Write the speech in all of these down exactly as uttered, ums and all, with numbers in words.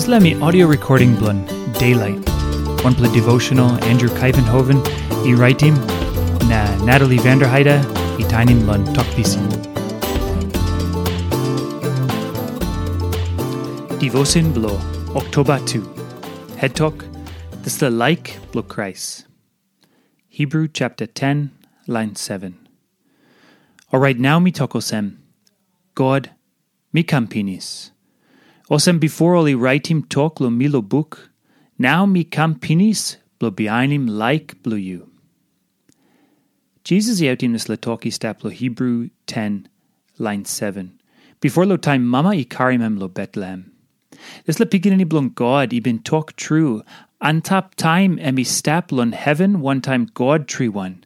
Dispela mi audio recording bilong Daylight, wanpela devotional Andrew Kaivenhoven i raitim, na Natalie Vanderheide i tainim long Tok Pisin. Devotion bilong Oktoba tu. Head Tok, Dispela Laik bilong Krais. Hebrew chapter ten, line seven. Orait nau mi tok olsem, God, mi kam pinis. Olsem bipo ol i raitim tok long mi long buk, nau mi kam pinis bilong bihainim laik bilong yu. Jisas i autim dispela tok i stap long Hebrew ten, lain seven, bipo long taim mama i karim em long Betlehem. Dispela Pikinini Bilong God i bin tok tru antap taim em i stap long heven wantaim God triwan,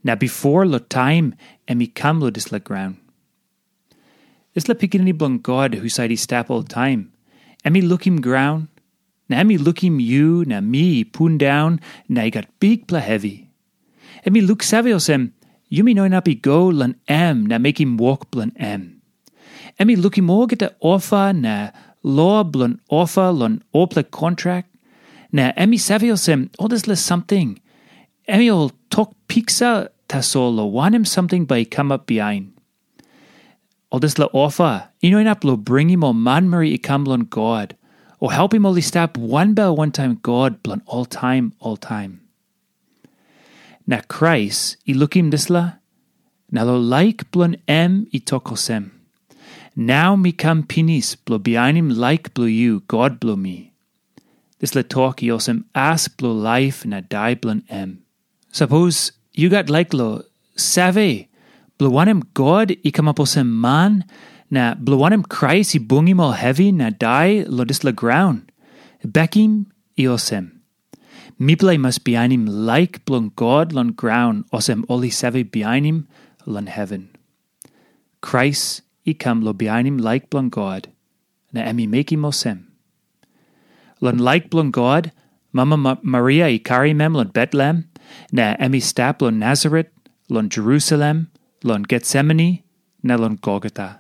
na bipo long taim em i kam long dispela graun. Dispela Pikinini Bilong God husat i stap oltaim, em i lukim graun, na em i lukim yu na mi i pundaun na i gat bikpela hevi. Em i luksave olsem, yumi no inap i go long em na mekim wok bilong em. Em i lukim olgeta ofa na lo bilong ofa long olpela kontrak, na em i save olsem ol dispela samting, em i ol tok piksa tasol long wanem samting bai i kamap bihain. Ol dispela ofa i no inap long bringim ol manmeri i kam long God, o helpim ol i stap wanbel wantaim God bilong oltaim oltaim. Na Krais i lukim dispela, na long laik bilong em i tok olsem, "Nau mi kam pinis bilong bihainim laik bilong yu, God bilong mi." Dispela tok i olsem as bilong laip na dai bilong em. Sapos yu gat laik long save, bilong wanem God i kamap olsem man, na bilong wanem Krais i bungim ol hevi na dai long dispela graun, bekim i olsem. Mipela i mas bihainim laik bilong God long graun olsem ol i save bihainim long heven. Krais i kam long bihainim laik bilong God, na em i mekim olsem. Long laik bilong God, mama Ma- Maria i karim em long Betlehem, na em i stap long Nasaret, long Jerusalem, long Getsemani, na long Golgota.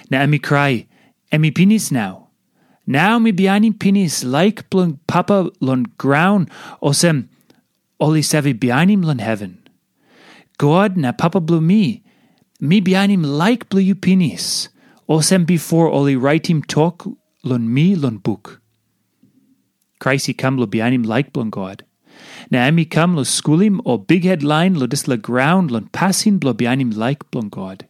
Na em i krai, "Em i pinis nau. Nau mi bihainim pinis laik bilong Papa long graun, olsem ol i save bihainim long heven. God na Papa bilong mi, mi bihainim laik bilong yu pinis, olsem bipo ol i raitim tok long mi long buk." Krais i kam long bihainim laik bilong God. Na em i kam long skulim ol bikhet lain long dispela graun long pasin bilong bihainim laik bilong God.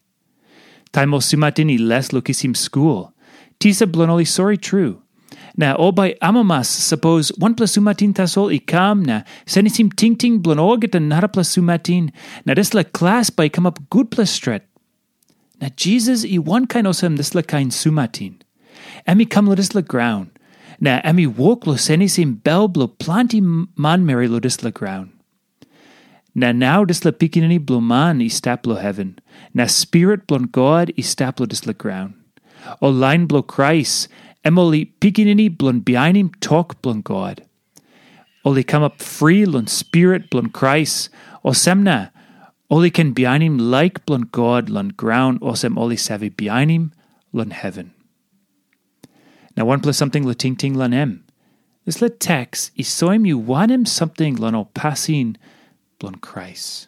Taim ol sumatin i les long kisim skul, tisa bilong ol i sori tru. Na ol bai amamas sapos wanpela sumatin tasol i kam na senisim tingting bilong olgeta narapela sumatin, na dispela klas bai i kamap gutpela stret. Na Jisas i wankain olsem dispela kain sumatin. Em i kam long dispela graun, na em i wok long senisim bel bilong planti manmeri long dispela graun. Na nau dispela Pikinini Bilong Man i stap long heven, na Spirit bilong God i stap long dispela graun. Ol lain bilong Krais, em ol i pikinini bilong bihainim tok bilong God. Ol i kamap fri long Spirit bilong Krais, olsem na ol i ken bihainim laik bilong God long graun olsem ol i save bihainim long heven. Na wanpela samting long tingting long em. Dispela teks i soim yu wanem samting long ol pasin bilong Krais.